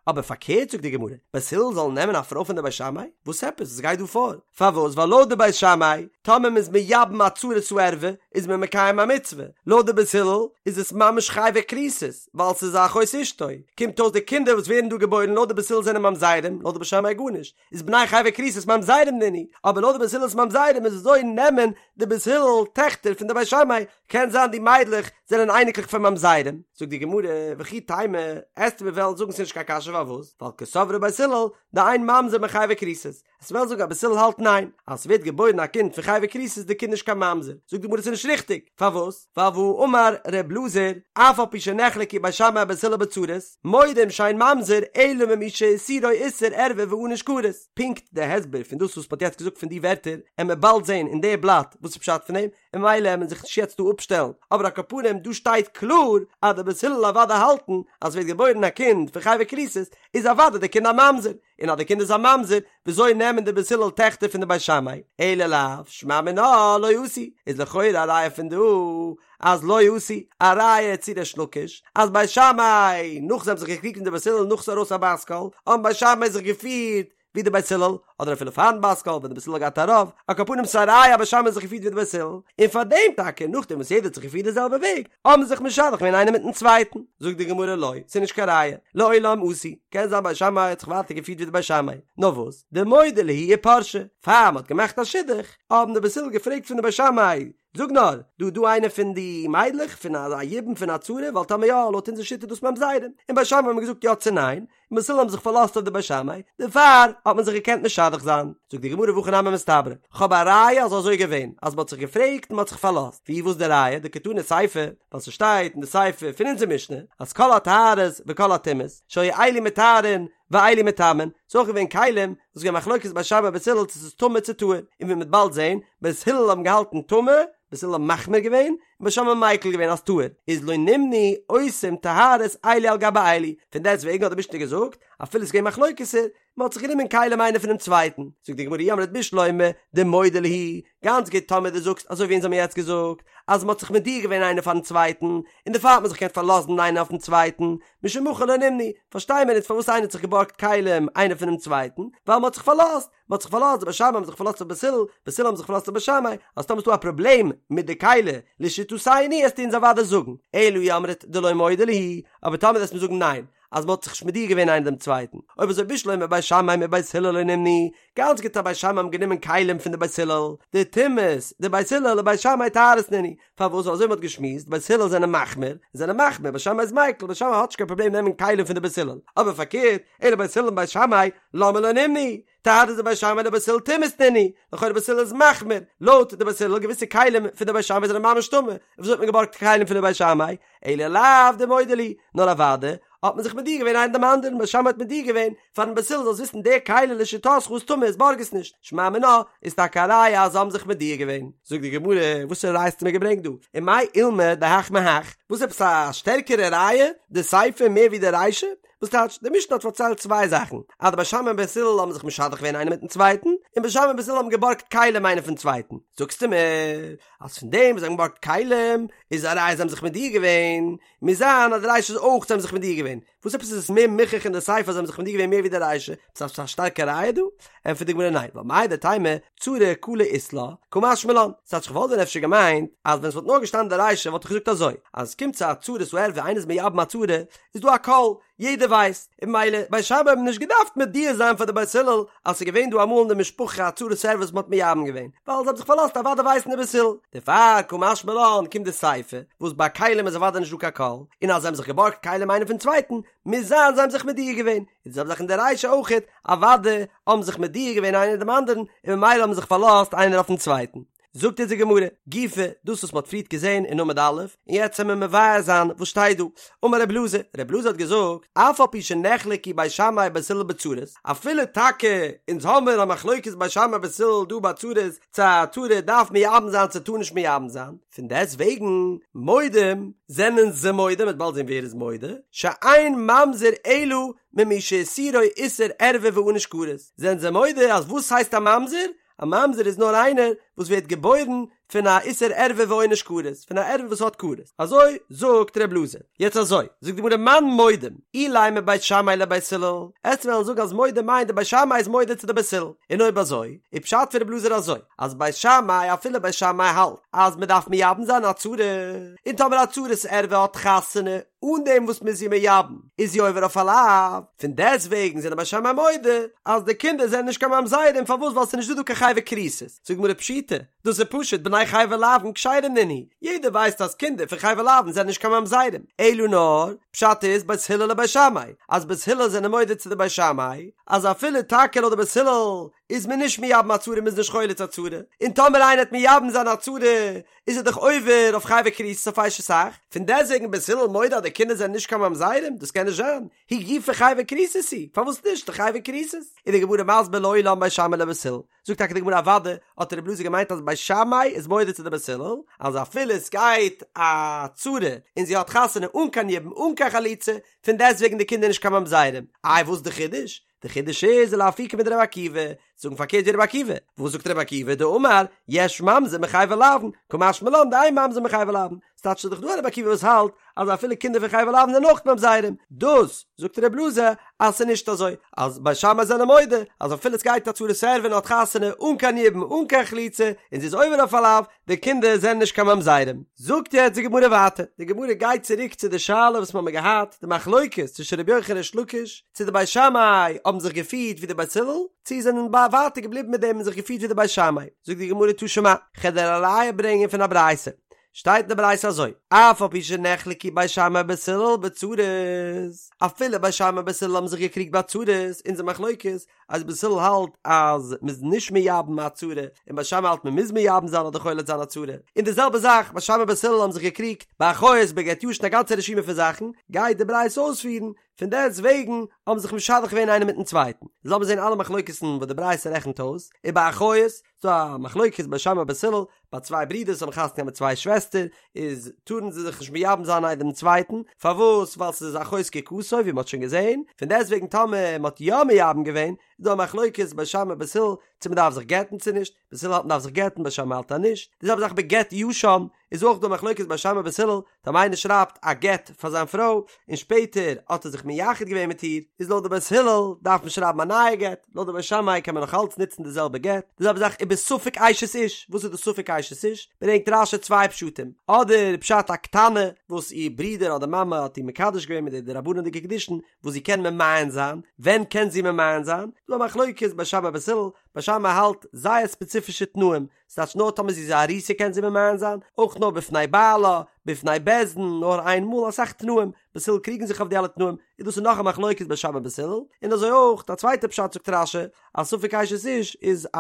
אבער פארקערט זאגט די גמרא, בית הלל זאלן נעמען א פרוי פון די בית שמאי? וואס עפעס? וואס גייט דא פאר? פארוואס? ווייל לויט די בית שמאי, טאמער מ'איז מייבם א צרת הערווה, איז מען מקיים א מצוה, לויט די בית הלל איז עס ממש חייבי כריתות, ווייל ס'איז א אחות אשתו, קומט אויס די קינדער וואס ווערן דא געבוירן לויט די בית הלל זענען ממזרים, לויט די בית שמאי גארנישט, איז בני חייבי כריתות ממזרים נינהו, אבער לויט די בית הלל איז ממזרים איז וויאזוי נעמען די בית הלל טעכטער פון די בית שמאי, קען זיין די מיידלעך זענען אייניקלעך פון ממזרים, זאגט די גמרא, וכי תימא, עסטו מיר וועלן זאגן ס'איז נישט קיין קשיא פארוואס, ווייל קסברי בית הלל, דאין ממזר מחייבי כריתות, עסט וועלן זאגן אז בית הלל האלט ניין, אז ס'ווערט געבוירן א קינד פון חייבי כריתות איז די קינד נישט קיין ממזר, זאגט די גמרא ס'איז נישט ריכטיג, פארוואס? ווייל והאמר ר' אלעזר, אף על פי שנחלקו בית שמאי ובית הלל בצרות, מודים שאין ממזר אלא ממי שאיסורו איסור ערווה וענוש כרת. פונקט די הסבר פון דאס וואס מ'האט יעצט געזאגט פון די ווערטער, עמיר באלד זען אין די בלאט וואס איז פשט פון דעם, און ממילא עמיר זיך נישט יעצט דא אפשטעלן, אבער על כל פנים דא שטייט קלאר אז די בית הלל אוודאי האלטן אז ס'ווערט געבוירן א קינד פון חייבי כריתות איז אוודאי די קינד א ממזר, און אז די קינד איז א ממזר, וויאזוי נעמען די בית הלל טעכטער פון די בית שמאי? אלא לאו, שמע מינה לא עשו, איז לכאורה א ראיה פון דא אז לא עשו, א ראיה צו ריש לקיש, אז בית שמאי, נאך זיי האבן זיך געקריגט מיט די בית הלל נאך ס'איז ארויס א בת קול, האבן בית שמאי זיך געפירט ווי די בית הלל, אדער אפילו פארן בת קול ווען די בית הלל האט געהאט א רוב, על כל פנים ס'איז א ראיה אז בית שמאי האט זיך געפירט ווי די בית הלל, און פאר דעם טאקע נאכדעם וואס יעדער האט זיך געפירט די זעלבע וועג, האבן זיך משדך געווען איינער מיטן צווייטן. זאגט די גמרא לא, ס'איז נישט קיין ראיה, לעולם עשו, קען זיין בית שמאי האט זיך ווייטער געפירט ווי די בית שמאי, נאר וואס, דמודעי להו ופרשי, פאר מ'האט געמאכט א שידוך, האבן די בית הלל געפרעגט פון די בית שמאי, זאג נאר, דא דא איינע פון די מיידלעך פון א יבום פון א צרה, ווייל טאמער יא, לויט אונזער שיטה איז דאס ממזרים, און בית שמאי האבן געזאגט יא צו ניין, און בית הלל האבן זיך פארלאזט אויף די בית שמאי, דערפאר האט מען זיך געקענט משדך זיין. זאגט די גמרא והכי נמי מסתברא, כ'האב א ראיה אז אזוי געווען, אז מ'האט זיך געפרעגט און מ'האט זיך פארלאזט, ווי וואס די ראיה, דקתני סיפא, ווייל ס'שטייט אין די סיפא פון אונזער משנה, אז כל הטהרות וכל הטומאות, שהיו אלו מטהרין ואלו מטמאין, ס'איז אויך געווען כלים, וואס איז געווען מחלוקת בית שמאי בית הלל צו ס'איז טמא צו טהור, און ווי מ'וועט באלד זען, בית הלל האבן געהאלטן טמא, בית הלל האבן מחמיר געווען, און בית שמאי האבן מיקל געווען אז טהור, איז לא נמנעו עושים טהרות אלו על גבי אלו, פון דעסט וועגן האט די משנה געזאגט, אפילו ס'איז געווען מחלוקת'ער, מ'האט זיך גענומען כלים איינער פונעם צווייטן, זאגט די גמרא אי אמרת בשלמא דמודעי להו, גאנץ גוט טאמער דו זאגסט אזוי ווי אונז האבן יעצט געזאגט, אז מ'האט זיך מודיע געווען איינער פארן צווייטן, און דערפאר האט מען זיך געקענט פארלאזן איינער אויפן צווייטן, משום הכי לא נמנעו, פארשטיי מיר איצט פארוואס איינער האט זיך געבארגט כלים איינער פונעם צווייטן, ווייל מ'האט זיך פארלאזט, מ'האט זיך פארלאזט, די בית שמאי האבן זיך פארלאזט אויף בית הלל, בית הלל האבן זיך פארלאזט אויף בית שמאי, אז טאמער איז דא א פראבלעם מיט די כלי, לשיטתינו עסטו אונז אוודאי זאגן, אלא אי אמרת דלא מודעי להו, אבער טאמער וועסט מיר זאגן ניין, אז מ'האט זיך נישט מודיע געווען איינער דעם צווייטן, אויב אזוי בשלמא בית שמאי מבית הלל לא נמנעו, גאנץ גוט אז בית שמאי האבן גענומען כלים פון די בית הלל, דטומאות דבית הלל לבית שמאי טהרות נינהו, פארוואס אזוי מ'האט געשמועסט, בית הלל זענען מחמיר, זענען מחמיר, בית שמאי איז מיקל, בית שמאי האט נישט קיין פראבלעם נעמען כלים פון די בית הלל, אבער פארקערט, אלא בית הלל מבית שמאי, למה לא נמנעו? טהרות דבית שמאי לבית הלל טומאות נינהו, לכאורה בית הלל איז מחמיר, לויט די בית הלל געוויסע כלים פון די בית שמאי זענען ממש טמא, און וויאזוי האט מען געבארגט כלים פון די בית שמאי? אלא לאו דמודעי להו, נאר אוודאי האט מען זיך מודיע געווען איינער דעם אנדערן, בית שמאי האט מודיע געווען פארן בית הלל זאלסט וויסן די כלי לשיטתך איז טמא איז בארג עס נישט, שמע מינה איז טאקע א ראיה אז זיי האבן זיך מודיע געווען. זאגט די גמרא, וואסערע ראיה האסטו מיר געברענגט דא? ומאי אולמיה דהך מהך, וואס עפעס א שטערקערע ראיה די סיפא מער ווי די רישא? וואס טייטש, די משנה האט פארציילט צוויי זאכן, אז די בית שמאי און בית הלל האבן זיך משדך געווען איינער מיטן צווייטן, און בית שמאי און בית הלל האבן געבארגט כלים איינער פון צווייטן. זאגסטו מיר אז פון דעם וואס זיי האבן געבארגט כלים איז א ראיה זיי האבן זיך מודיע געווען, מוז זיין אז די רישא איז אויך זיי האבן זיך מודיע געווען. וואס עפעס איז עס מער מוכח אין די סיפא אז זיי האבן זיך מודיע געווען מער ווי די רישא? עפעס א שטארקע ראיה דא? ענטפערט די גמרא ניין, ווייל מהו דתימא צרה קלה אית לה, קא משמע לן. ס'טייטש כ'וואלט ווען אפשר געמיינט אז ווען ס'וואלט נאר געשטאנען די רישא וואלט איך געזאגט אזוי, אז עס קומט צו א צרת הערוה איינער איז מייבם א צרה, איז דא א קול, יעדער ווייסט, און ממילא בית שמאי האבן נישט געדארפט מודיע זיין פאר די בית הלל אז ס'איז געווען דא אמאל אין די משפחה א צרת ערוה וואס מ'האט מייבם געווען, ווייל זיי האבן זיך פארלאזט אוודאי ווייסן די בית הלל. דערפאר קא משמע לן קומט די סיפא, וואס ביי כלים איז אוודאי נישט דא קיין קול, און אז זיי האבן זיך געבארגט כלים איינער פון צווייטן, מוז זיין זיי האבן זיך מודיע געווען, און די זעלבע זאך אין די רישא אויכעט, אוודאי האבן זיך מודיע געווען איינער דעם אנדערן, און ממילא האבן זיך פארלאזט איינער אויפן צווייטן. זאגט אונז די גמרא, גופא, דאס וואס מ'האט פריערט געזען אין עמוד א', און יעצט וועלן מיר מבאר זיין וואס שטייט דא. אמר רב אלעזר, רב אלעזר האט געזאגט, אף על פי שנחלקו בית שמאי ובית הלל בצרות, אפילו טאקע אונז האמיר א מחלוקת בית שמאי ובית הלל דא ביי צרות, צו א צרה דארף מייבם זיין צו טאר נישט מייבם זיין, פון דעסט וועגן מודים זענען זיי מודה, מ'וועט באלד זען ווער איז מודה, שאין ממזר אלא ממי שאיסורו איסור ערווה וענוש כרת, זענען זיי מודה אז וואס הייסט א ממזר? א ממזר איז נאר איינער וואס ווערט געבוירן פון א איסור ערווה ועונש כרת, פון א ערווה וואס האט כרת, אזוי זאגט ר' אלעזר. יעצט אזוי, זאגט די גמרא מאן מודים, אילימא בית שמאי לבית הלל, עסט וועלן זאגן אז מודים מיינט די בית שמאי איז מודה צו די בית הלל, און אויב אזוי, איז פשט פון ר' אלעזר אזוי, אז בית שמאי אפילו בית שמאי האלט אז מען דארף מייבם זיין א צרה, און טאמער א צרת ערווה האט חתונה אן דעם וואס מען איז איר מייבם, איז זי עובר אויף א לאו, פון דעסט וועגן זענען בית שמאי מודה אז די קינדער זענען נישט קיין ממזרים, פארוואס ווייל ס'איז נישט דא דא קיין חייבי כריתות, זאגט די גמרא פשיטא, דאס איז פשוט בני חייבי לאוין כשרים נינהו, יעדער ווייסט אז קינדער פון חייבי לאוין זענען נישט קיין ממזרים, אלא נאר, פשט איז בית הלל לבית שמאי, אז בית הלל זענען מודה צו די בית שמאי, אז אפילו טאקע לויט די בית הלל איז מען נישט מייבם א צרה מ'איז נישט חולץ א צרה, און טאמער איינער וועט מייבם זיין א צרה איז ער דאך עובר אויף חייבי כריתות אויף אשת אח, פון דעסטוועגן בית הלל מודה אז די קינדער זענען נישט קיין ממזרים, דאס קען נישט זיין, היא גופא חייבי כריתות היא, פארוואס נישט די חייבי כריתות? איז די גמרא מסביר לעולם בית שמאי לבית הלל, זאגט טאקע די גמרא אוודאי האט רבי אלעזר געמיינט אז בית שמאי איז מודה צו די בית הלל, אז אפילו עס גייט א צרה און זי האט חתונה אן קיין יבום אן קיין חליצה, פון דעסטוועגן די קינדער נישט קיין ממזרים, איי וואס די חידוש? די חידוש איז לאפוקי מדרבי עקיבא, זאגן פארקערט ווי רבי עקיבא, וואס זאגט רבי עקיבא דאמר יש ממזר מחייבי לאוין, קא משמע לן דאין ממזר מחייבי לאוין, ס'טייטש ס'איז דאך דא א רבי עקיבא וואס האלט אז אפילו קינדער פון חייבי לאוין זענען אויך ממזרים, דאס זאגט רבי אלעזר אז ס'איז נישט אזוי, אז בית שמאי זענען מודה אז אפילו ס'גייט א צרת ערווה און האט חתונה אן קיין יבום אן קיין חליצה און זי איז עובר אויף א לאו, די קינדער זענען נישט קיין ממזרים. זאגט יעצט די גמרא ווייטער, די גמרא גייט צוריק צו די שאלה וואס מ'האמיר געהאט, די מחלוקת צווישן רבי יוחנן און ריש לקיש, צו די בית שמאי האבן זיך געפירט ווי די בית הלל, צו זענען ווייטער געבליבן מיט דעם און זיך געפירט ווי די בית שמאי. זאגט די גמרא תא שמע, כ'על דיר א ראיה ברענגען פון א ברייתא, שטייט אין די ברייתא אזוי, אף על פי שנחלקו בית שמאי ובית הלל בצרות, אפילו בית שמאי ובית הלל האבן זיך געקריגט ביי צרות, אונזער מחלוקת, אז בית הלל האלט אז מ'איז נישט מייבם א צרה, און בית שמאי האלט מ'מוז מייבם זיין אדער חולץ זיין א צרה, און די זעלבע זאך בית שמאי בית הלל האבן זיך געקריגט ביי אחות בגט ישן א גאנצע רשימה פון זאכן, גייט די ברייתא אויספירן, פון דעסט וועגן האבן זיך משדך געווען איינער מיטן צווייטן. לאמיר זען אלע מחלוקת'ן וואס די ברייתא רעכנט אויס, ובאחיות, ס'דא א מחלוקת בית שמאי בית הלל, ביי צוויי ברידערס האבן חתונה געהאט מיט צוויי שוועסטער, איז טארן זיי זיך נישט מייבם זיין איינער דעם צווייטן, פארוואס? ווייל ס'איז אחות זקוקתו ווי מ'האט שוין געזען, פון דעסט וועגן טאמער מ'האט יא מייבם געווען, איז דא א מחלוקת בית שמאי בית הלל צו מ'דארף זיך גט'ן צו נישט, בית הלל האלט מ'דארף זיך גט'ן בית שמאי האלט אז נישט, די זעלבע זאך בגט ישן, איז אויך דא מחלוקת בית שמאי בית הלל, טאמער איינער שרייבט א גט פאר זיין פרוי און שפעטער האט ער זיך מייחד געווען מיט איר, איז לויט די בית הלל דארף מען שרייבן א נייע גט, לויט די בית שמאי קען מען נאך אלץ נוצן די זעלבע גט, די זעלבע זאך ובספק אשת איש, וואס איז די ספק אשת איש? ברענגט רש"י צוויי פשטים, אדער פשט א קטנה וואס איר ברודער אדער מאמע האט איר מקדש געווען מיט די דרבנן'דיגע קידושין וואס זי קען ממאן זיין, ווען קען זי ממאן זיין? דא א מחלוקת בית שמאי בית הלל, בית שמאי האלט זייער ספעציפישע תנאים, ס'טייטש נאר טאמער זי איז א ארוסה קען זי ממאן זיין, אויך נאר בפני בעלה, בפני בית דין, נאר איין מאל, אסאך תנאים, בית הלל קריגן זיך אויף די אלע תנאים, און דאס איז נאך א מחלוקת בית שמאי בית הלל, און אזוי אויך א צווייטע פשט זאגט רש"י, אז ספק אשת איש איז א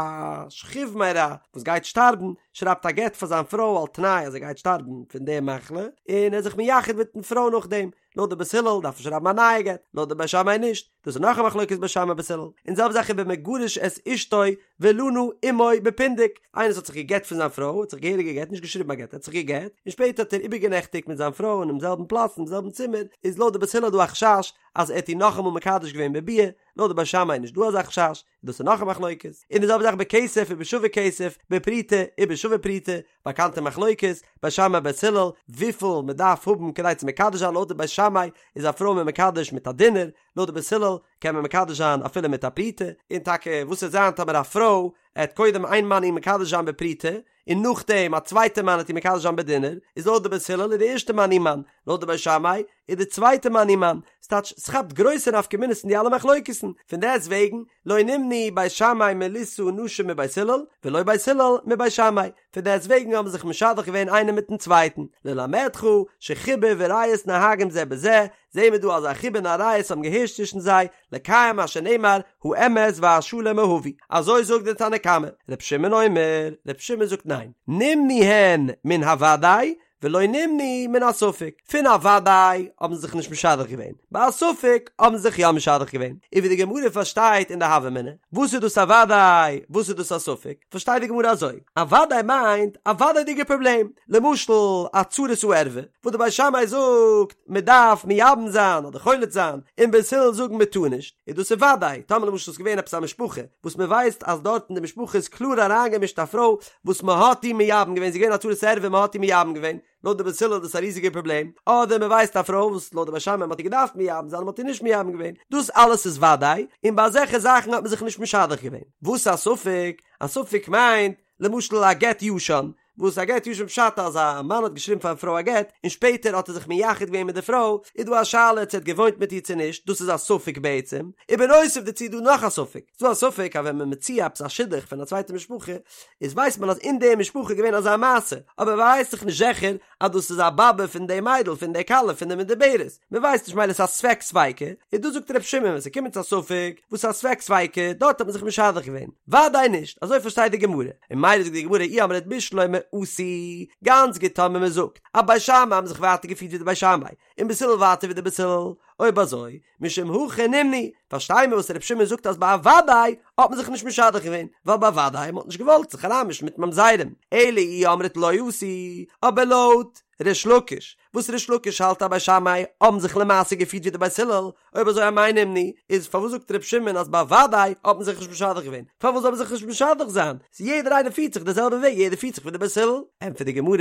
שכיב מרע וואס גייט שטארבן, שרייבט א גט פאר זיין פרוי על תנאי אז ער גייט שטארבן פון די מחלה, און ער איז זיך מייחד מיטן פרוי נאכדעם, לויט די בית הלל דארף מען שרייבן א נייע גט, לויט די בית שמאי נישט, דאס איז נאך א מחלוקת בית שמאי בית הלל, און זעלבע זאך ובמגרש את אשתו ולנה עמו בפונדק, איינער וואס האט זיך גע'גט פון זיין פרוי, האט זיך געהעריג גע'גט, נישט געשריבן א גט, ער האט זיך גע'גט, און שפעטער האט ער איבערגענעכטיגט מיט זיין פרוי אינעם זעלבן פלאץ אינעם זעלבן צימער, איז לויט די בית הלל דא א חשש אז ער האט איר נאכאמאל מקדש געווען בביאה, לויט די בית שמאי איז נישט דא אזא חשש, דאס איז נאך א מחלוקת, און די זעלבע זאך בכסף ובשווה כסף, בפרוטה ובשווה פרוטה, באקאנטע מחלוקת, בית שמאי בית הלל, וויפיל מען דארף האבן כדי צו מקדש זיין, לויט די בית שמאי איז א פרוי מען מקדש מיט א דינר, לויט די בית הלל קען מען מקדש זיין אפילו מיט א פרוטה, און טאקע וואס וועט זיין טאמער א פרוי עט קודם איין מאן איר מקדש זיין בפרוטה, און נאכדעם א צווייטע מאן עט איר מקדש זיין בדינר, איז לויט די בית הלל איז די ערשטע מאן איר מאן, לויט די בית שמאי. איז די צווייטע מאן איר מאן, ס'טייטש ס'כאפט גרויסע נפקא מינות אין די אלע מחלוקת'ן, פון דעסט וועגן לא נמנעו בית שמאי מלישא נשים מבית הלל ולא בית הלל מבית שמאי, פון דעסט וועגן האבן זיך משדך געווען איינער מיטן צווייטן, ללמדך שחיבה וריעות נוהגים זה בזה, זעהן מיר דא אז א חיבה און א ריעות האבן געהערשט צווישן זיי, לקיים מה שנאמר האמת והשלום אהבו, אזוי זאגט דער תנא קמא, ר' שמעון אומר, ר' שמעון זאגט ניין, נמנעו הן מן הוודאי ולא נמנעו מן הספק, פון א וודאי האבן זיי זיך נישט משדך געווען, ביי א ספק האבן זיי זיך יא משדך געווען, און ווי די גמרא פארשטייט אין די הוה אמינא, וואס איז דאס א וודאי, וואס איז דאס א ספק, פארשטייט די גמרא אזוי, א וודאי מיינט א וודאי'דיגע פראבלעם, למשל א צרת הערווה, וואס די בית שמאי זאגט מען דארף מייבם זיין אדער חולץ זיין, און בית הלל זאגן מען טאר נישט, איז דאס איז וודאי, טאמער למשל איז געווען עפעס א משפחה וואס מען ווייסט אז דארט אין די משפחה איז קלאר אריינגעמישט א פרוי וואס מען האט איר מייבם געווען, זי איז געווען א צרת ערווה מען האט איר מייבם געווען, לויט די בית הלל איז דאס א ריזיגער פראבלעם, אדער מען ווייסט א פרוי וואס לויט די בית שמאי מען האט איר געדארפט מייבם זיין און מען האט איר נישט מייבם געווען, דאס אלעס איז וודאי, און ביי אזעלכע זאכן האט מען זיך נישט משדך געווען. וואס א ספק? א ספק מיינט, למשל א גט ישן, וואס א גט ישן פשט אז א מאן האט געשריבן פארן פרוי א גט און שפעטער האט ער זיך מייחד געווען מיט די פרוי, איז דא א שאלה צו ער האט געוואוינט מיט איר צו נישט, דאס איז א ספק בעצם, ובנוסף דערצו איז דא נאך א ספק, ס'איז דא א ספק אז ווען מען מציע עפעס א שידוך פון א צווייטע משפחה, איז ווייסט מען אז אין די משפחה איז געווען אזא מעשה, אבער מען ווייסט דאך נישט זיכער אז דאס איז א באבע פון די מיידל פון די כלה פון די מדוברת, מען ווייסט נישט מילא ס'איז א ספק ספיקא, איז דא זאגט ר' שמעון ווען ס'קומט צו א ספק, וואס איז א ספק ספיקא, דארט האט מען זיך משדך געווען, וודאי נישט, אזוי פארשטייט די גמרא, און מילא זאגט די גמרא אי אמרת בשלמא עשו, גאנץ גוט טאמער מען זאגט אז בית שמאי האבן זיך ווייטער געפירט ווי די בית שמאי, און בית הלל ווייטער ווי די בית הלל, אויב אזוי, משום הכי נמנעו, פארשטיי מיר וואס ר' שמעון זאגט אז ביי א וודאי האט מען זיך נישט משדך געווען, ווייל ביי וודאי מען האט נישט געוואלט זיך אריינמישן מיט ממזרים, אלא אי אמרת לא עשו, אבער לויט ריש לקיש, וואס ריש לקיש האלט אז בית שמאי האבן זיך למעשה געפירט ווי די בית הלל, אויב אזוי אמאי נמנעו, איז פארוואס זאגט ר' שמעון אז ביי וודאי האט מען זיך נישט משדך געווען, פארוואס זאל מען זיך נישט משדך זיין, ס'איז יעדער איינער פירט זיך די זעלבע וועג, יעדער פירט זיך ווי די בית הלל. ענטפערט די גמרא,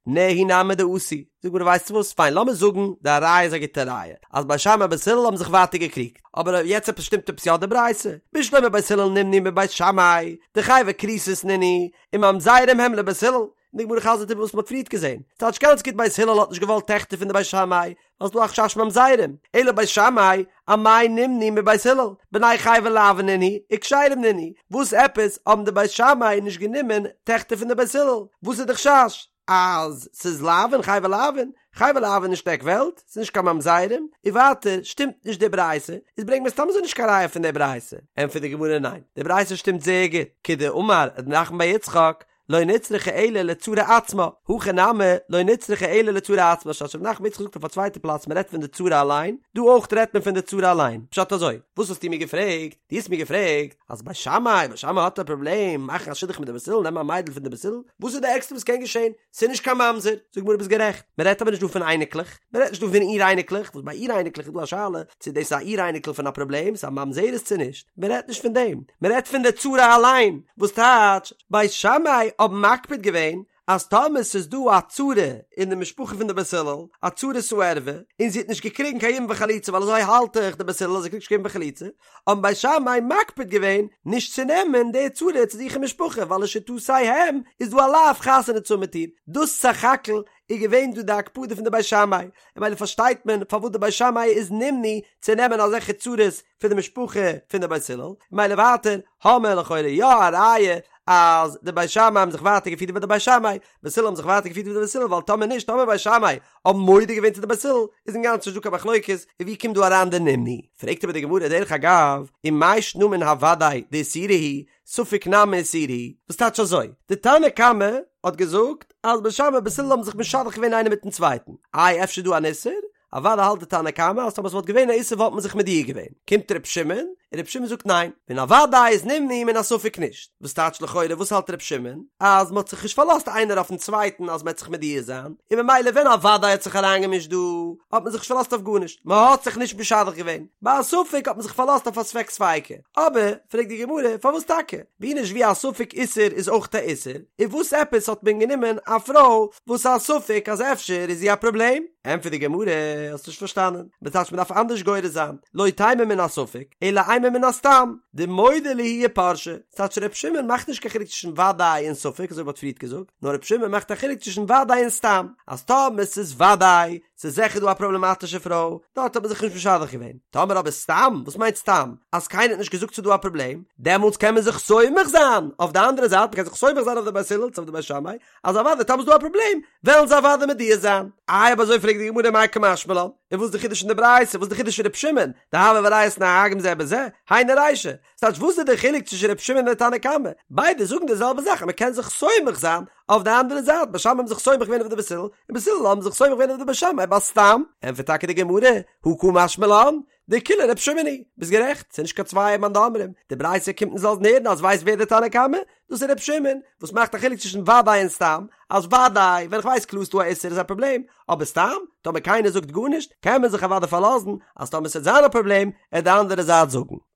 נהי נמי דעשו, זאגט די גמרא ווייסטו וואס, פיין לאמיר זאגן די ראיה איז א גוטע ראיה, אז בית שמאי בית הלל האבן זיך ווייטער געקריגט, אבער יעצט עפעס שטימט עפעס יא די ברייתא, בשלמא בית הלל נמנעו מבית שמאי, דחייבי כריתות נינהו, וממזרים הם לבית הלל, און די גמרא חזר'ט איבער וואס מ'האט פריערט געזען, ס'טייטש גאנץ גוט בית הלל האט נישט געוואלט טעכטער פון די בית שמאי, ווייל ס'דא א חשש ממזרים, אלא בית שמאי, אמאי נמנעו מבית הלל, בני חייבי לאוין נינהו, וכשרים נינהו, וואס עפעס האבן די בית שמאי נישט גענומען טעכטער פון די בית הלל, וואס איז די חשש? אז ס'איז לאוין חייבי לאוין, חייבי לאוין נישט עק וועלט, ס'איז נישט קיין ממזרים, און ווייטער שטימט נישט די ברייתא, איז ברענג מיר סתם אזוי נישט קיין ראיה פון די ברייתא, ענטפערט די גמרא ניין, די ברייתא שטימט זייער גוט, כדאמר ר' נחמן בר יצחק, לא נצרכה אלא לצרה עצמה, הכא נמי לא נצרכה אלא לצרה עצמה, ס'טייטש ר' נחמן בר יצחק זאגט אויף א צווייטע פלאץ מען רעדט פון די צרה אליין, דא אויך רעדט מען פון די צרה אליין, פשט אזוי, וואס האסטו מיר געפרעגט? דו האסט מיר געפרעגט אז בית שמאי, בית שמאי האט א פראבלעם מאכן א שידוך מיט די בית הלל, נעמען א מיידל פון די בית הלל, וואס איז די ערגסטע וואס קען געשען? ס'איז נישט קיין ממזר, זאגט די גמרא ביסט גערעכט, מען רעדט אבער נישט דא פון אייניקלעך, מען רעדט נישט דא פון אור אייניקלעך, וואס ביי אור אייניקלעך איז דא א שאלה צו דאס איז א אור אייניקל פון א פראבלעם, ס'איז א ממזרת צו נישט, מען רעדט נישט פון דעם, מען רעדט פון די צרה אליין, וואס טייטש, בית שמאי האבן מקפיד געווען אז טאמער ס'איז דא א צרה אין די משפחה פון די בית הלל, א צרת הערווה, און זי האט נישט געקריגן קיין יבום וחליצה ווייל אזוי האלט דאך די בית הלל אז זי קריגט נישט קיין יבום וחליצה, האבן בית שמאי מקפיד געווען נישט צו נעמען די צרה צו זיך אין משפחה ווייל לשיטותיהם איז דא א לאו חתונה צו האבן מיט איר, דאס סך הכל איז געווען דא די הקפדה פון די בית שמאי, און ממילא פארשטייט מען פארוואס די בית שמאי איז נמנעו צו נעמען אזעלכע צרות פון די משפחה פון די בית הלל, ממילא ווייטער האמער לכאורה יא א ראיה אז די בית שמאי האבן זיך ווייטער געפירט ווי די בית שמאי, בית הלל האבן זיך ווייטער געפירט ווי די בית הלל ווייל טאמער נישט טאמער בית שמאי האבן מודה געווען צו די בית הלל איז אינגאנצן נישט דא קיין מחלוקת און ווי קומט דא אריין די נמנעו? פרעגט אבער די גמרא דרך אגב ומאי שנא מן הוודאי דאיסורא הוא ספק נמי איסורא הוא וואס טייטש אזוי? די תנא קמא האט געזאגט אז בית שמאי בית הלל האבן זיך משדך געווען איינער מיטן צווייטן איי אפשר איז דא אן איסור? אוודאי האלט די תנא קמא אז טאמער ס'וואלט געווען א איסור וואלט מען זיך מודיע געווען. קומט ר' שמעון, און ר' שמעון זאגט ניין, מן הוודאי איז נמנעו מן הספק נישט. וואס טייטש לכאורה וואס האלט ר' שמעון? אז מ'האט זיך נישט פארלאזט איינער אויפן צווייטן אז מ'עט זיך מודיע זיין, און ממילא ווען א וודאי האט זיך אריינגעמישט דא, האט מען זיך נישט פארלאזט אויף גארנישט, מ'האט זיך נישט משדך געווען. ביי א ספק האט מען זיך פארלאזט אויף א ספק ספיקא. אבער, פרעגט די גמרא, פארוואס טאקע? ווי נישט ווי א ספק איסור איז אויך א איסור, און וואס עפעס האט מען גענומען א פרוי וואס א ספק אז אפשר איז זי א פראבלעם? ענטפערט די גמרא, האסט נישט פארשטאנען, ס'טייטש מ'דארף אנדערש גורס זיין, לא תימא מן הספק, אלא אימא מן הסתם, דמודעי להו ופרשי, ס'טייטש ר' שמעון מאכט נישט קיין חילוק צווישן וודאי און ספק אזוי ווי מ'האט פריערט געזאגט, נאר ר' שמעון מאכט א חילוק צווישן וודאי און סתם, אז טאמער ס'איז וודאי, ס'איז זיכער דא א פראבלעמאטישע פרוי, דארט האט מען זיך נישט משדך געווען. טאמער אבער סתם, וואס מיינט סתם? אז קיינער האט נישט געזאגט ס'איז דא א פראבלעם, דעמאלטס קען מען זיך סומך זיין אויף די אנדערע זייט, מ'קען זיך סומך זיין אויף די בית הלל צו אויף די בית שמאי, אז אוודאי טאמער איז דא א פראבלעם, וועלן זיי אוודאי מודיע זיין. איי אויב אזוי פרעגט די גמרא מאי קא משמע לן, און וואס איז די חידוש אין די ברייתא, וואס איז די חידוש פון ר' שמעון, דהוה והריעותא נוהגין זה בזה, היינו רישא, ס'טייטש וואס איז די חילוק צווישן ר' שמעון און די תנא קמא, ביידע זאגן די זעלבע זאך אז מ'קען זיך סומך זיין אויף די אנדערע זייט, בית שמאי האבן זיך סומך געווען אויף די בית הלל, און בית הלל האבן זיך סומך געווען אויף די בית שמאי ביי סתם, ענטפערט טאקע די גמרא, הא קא משמע לן, דכולה ר' שמעון היא, ביסט גערעכט, ס'איז נישט קיין צוויי מאן דאמרים, די ברייתא קומט אונז לאזן הערן אז ווייסט ווער די תנא קמא? דאס איז ר' שמעון, וואס מאכט א חילוק צווישן וודאי און סתם, אז וודאי, ווען איך ווייס קלאר ס'דא א איסור איז א פראבלעם, אבער סתם, טאמער קיינער זאגט גארנישט, קען מען זיך אוודאי פארלאזן אז טאמער ס'וועט זיין א פראבלעם, עט די אנדערע זייט זאגן.